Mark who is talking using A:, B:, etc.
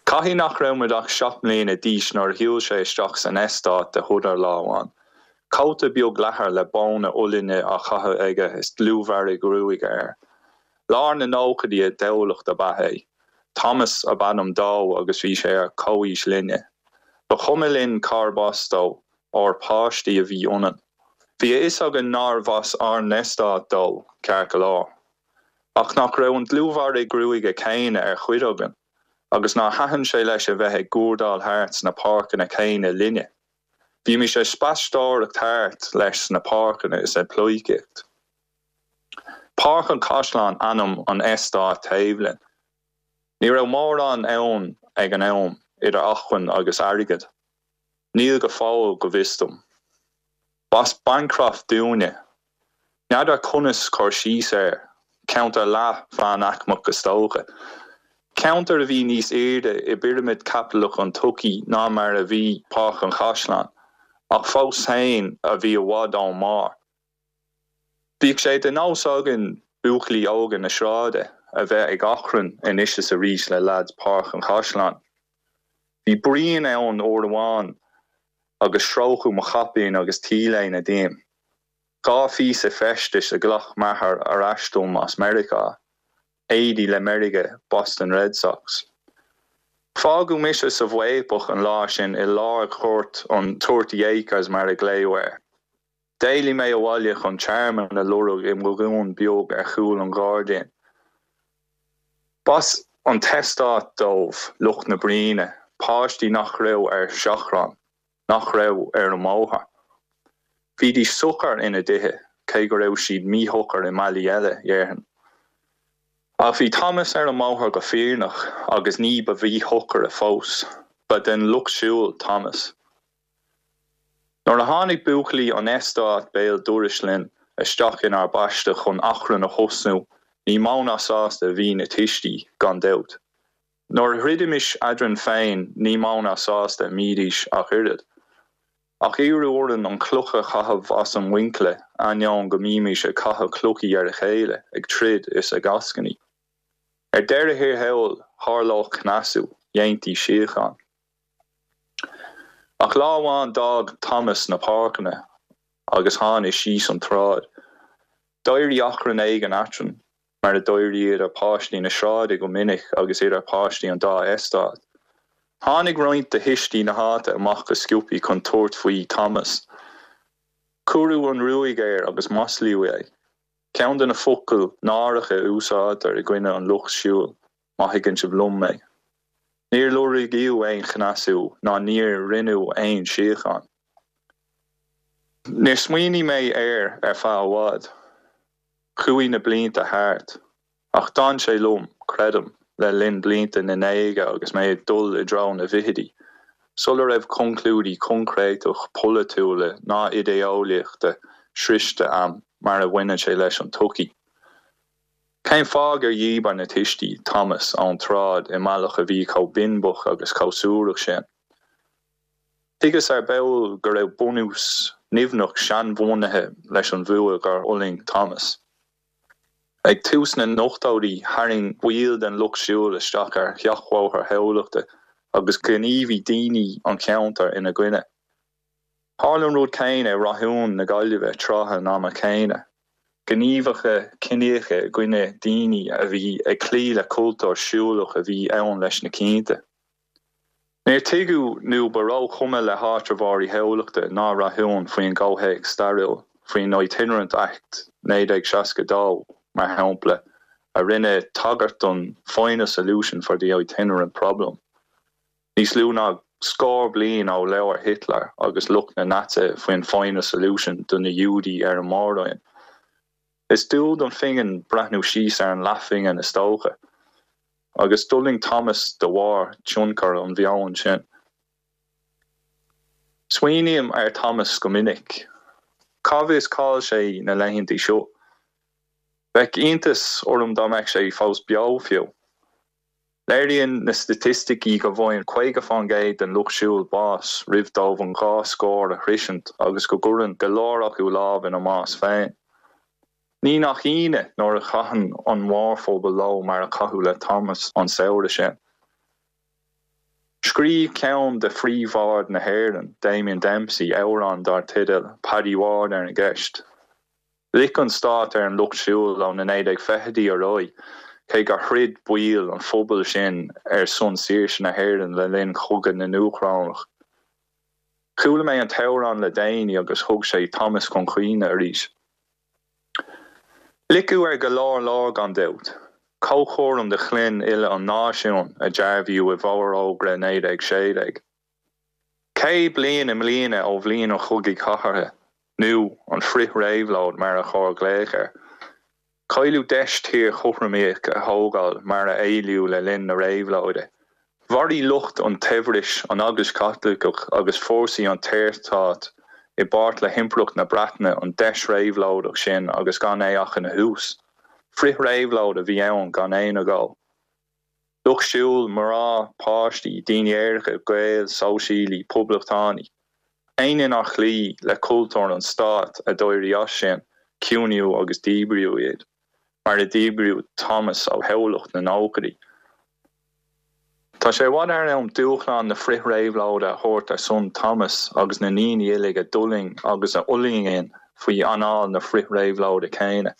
A: Caithfidh nach raibh muid ach 7 mbliana d'aois nuair a shiúil sé isteach san eastát de shodar lá amháin. Cóta beag leathair le bóna uillinne á chaitheamh aige is dlúthbhearradh gruaige air. Lár na nóchaidí i dTamhlacht ab ea é. Thomas ab ainm dó agus bhí sé ar comhaois linne. Ba chuma linn cárb as dó, óir páistí a bhí ionainn. Bhí a fhios againn nárbh as ár n-eastát dó, ceart go leor. Ach nach raibh an dlúthbhearradh gruaige céanna ar chuid againn, agus nár thaitin sé leis a bheith ag guairdeall thart sna páirceanna céanna linne? Bhímis ag spaisteoireacht thart leis sna páirceanna is ag pleidhcíocht. Páirc an Chaisleáin ainm an eastáit taobh linn. Ní raibh mórán ann ag an am, idir acmhainn agus airgead. Níl go fóill, go bhfios dom. B'as Bancroft dúinne. N'fheadar conas cur síos air, ceantar leath-mheánaicmeach is dócha. Ceantar a bhí níos airde i bpirimid chaipitleach an tsochaí ná mar a bhí Páirc an Chaisleáin, ach fós féin a bhí i bhfad ón mbarr. Bhíodh sé de nós againn, buachaillí óga na sráide, a bheith ag achrann anois is arís le leaids Páirc an Chaisleáin. Bhí bruíon ann uair amháin agus stróiceadh mo chaipín agus t-léine díom. 2 phíosa feistis a ghlac m'athair ar ais dom as Meiriceá, éadaí le meirge Boston Red Sox. Fágadh mise sa bhfaopach an lá sin i lár ghort an Thirty Acres mar a glaodh air. D'éalaigh mé abhaile chun tearmann a lorg i mbogún beag ar chúl an ghairdín. B'as an t-eastát dóibh, lucht na bruíne, páistí nach raibh ar seachrán, nach raibh ar an mbóthar. Bhídís socair ina dtithe, cé go raibh siad míshocair i mbealaí eile, dhéarfainn. Ach bhí Thomas ar an mbóthar go fírinneach agus ní ba mhíshocaire fós. Ba den lucht siúil Thomas. Nuair a tháinig buachaillí an eastáit béal dorais linn isteach inár bpaiste chun achrann a thosnú ní mó ná sásta a bhí na tuistí, gan dabht. Nuair a throidimis eadrainn féin ní mó ná sásta a mbídís ach oiread. Ach iarradh orainn an chloch a chaitheamh as an mhuinchille, ainneoin go mbímis ag caitheamh clochaí ar a chéile, ag troid is ag eascainí. Ar deireadh thiar thall, tharlódh cneasú, dhéantaí síocháin. Ach lá amháin d'fhág Thomas na páirceanna agus tháinig síos an tsráid. D'éirigh achrann éigin eadrainn, mar a d'éiríodh idir páistí na sráide go minic agus idir páistí an dá eastát. Tháinig roinnt de thuistí na háite amach go sciobthaí chun tabhairt faoi Thomas. Cuireadh an ruaig air agus maslaíodh é. Ceann de na focail náireacha a úsáidtear i gcoinne an lucht siúil, má thuigeann sibh liom mé. Níor lorgaíodh aon chneasú ná níor rinneadh aon síocháin. Níor smaoinigh mé air ar feadh i bhfad. Chuaigh na blianta thart. Ach d'fhan sé liom, creidim, le linn blianta na ndéaga agus mé ag dul i dtreo na bhfichidí, sula raibh conclúidí coincréiteach polaitiúla ná idé-eolaíochta sroichte a'm mar a bhaineann sé leis an tsochaí. Cén fáth gur dhíbir na tuistí Thomas ón tsráid i mbealach a bhí chomh binbeach agus chomh suarach sin? Thuigeas ar ball go raibh bunús nimhneach seanbhunaithe leis an bhfuath gur fhulaing Thomas. Ag tús na n-ochtóidí, tharraing baill den lucht siúil isteach ar sheachbhóthar Thamhlachta agus ghníomhaigh daoine an cheantair ina gcoinne. Tharla an rud céanna i Rathún na Gaillimhe tráth an ama chéanna, gníomhartha ciníocha i gcoinne daoine a bhí ag cloí le cultúr siúlach a bhí ann leis na cianta. Níor tuigeadh nó ba róchuma le háitreabhóirí Thamhlachta ná Rathúin faoin gcomhthéacs stairiúil, faoin Itinerant Act 1962, mar shampla, a rinne tagairt don final solution for the itinerant problem. Níos lú ná scór bliain ó labhair Hitler agus lucht na Naitsithe faoin final solution do na Giúdaigh ar an Mór-Roinn. Is dual don phingin breathnú síos ar an leathphingin is dócha. Agus d'fhulaing Thomas de bharr tionchar an mheoin sin. Smaoiním ar Thomas go minic. Cá bhfios cá'il sé na laethanta seo? Bheadh iontas orm dá mbeadh sé fós beo fiú. Léiríonn na staitisticí go bhfaigheann 50% den lucht siúil bás roimh dóibh an 2 scór a shroisint agus go gcuireann go leor acu lámh ina mbás féin. Ní nach ionadh nuair a chaitheann an mórphobal leo mar a caitheadh le Thomas an samhradh sin. Scríobh ceann de phríomh-bhaird na hÉireann, Damien Dempsey, amhrán dar teideal 'Paddy Ward' ar an gceist. Loic an stát ar an Lucht Siúil ó na 1920idí ar aghaidh, cé gur throid baill an phobail sin ar son saoirse na hÉireann le linn Chogadh na nDúchrónach. Chuala mé an t-amhrán le déanaí agus thug sé Thomas chun cuimhne arís. Loiceadh ar go leor leor gan dabht. Comhchúram do chlann uile an náisiúin, a dearbhaíodh i bhForógra 1916. 100 bliain i mbliana ó bhliain an Chogaidh Chathartha, nó an Frith-Réabhlóid mar ar chóir glaoch air. Cailleadh deis tír chothromaíoch a thógáil mar a éilíodh le linn na réabhlóide. Mharaigh lucht an tsaibhris, an Eaglais Chaitliceach agus fórsaí an tSaorstáit i bpáirt le hImpireacht na Breataine an deis réabhlóideach sin agus gan é ach ina thús. Frith-réabhlóid a bhí ann gan aon agó. Lucht siúil, mná, páistí, daoine aeracha, Gaeil, sóisialaigh, poblachtánaigh. Éinne nár chloígh le cultúr an stáit a d'éirigh as sin, ciúnaíodh agus díbríodh iad, mar a díbríodh Thomas ó thoghlach na nóchaidí. Tá sé i bhfad thar am dúshlán na frith-réabhlóide a thabhairt ar son Thomas agus na ndaoine uilig a d'fhulaing agus a fhulaingíonn faoi anáil na frith-réabhlóide céanna.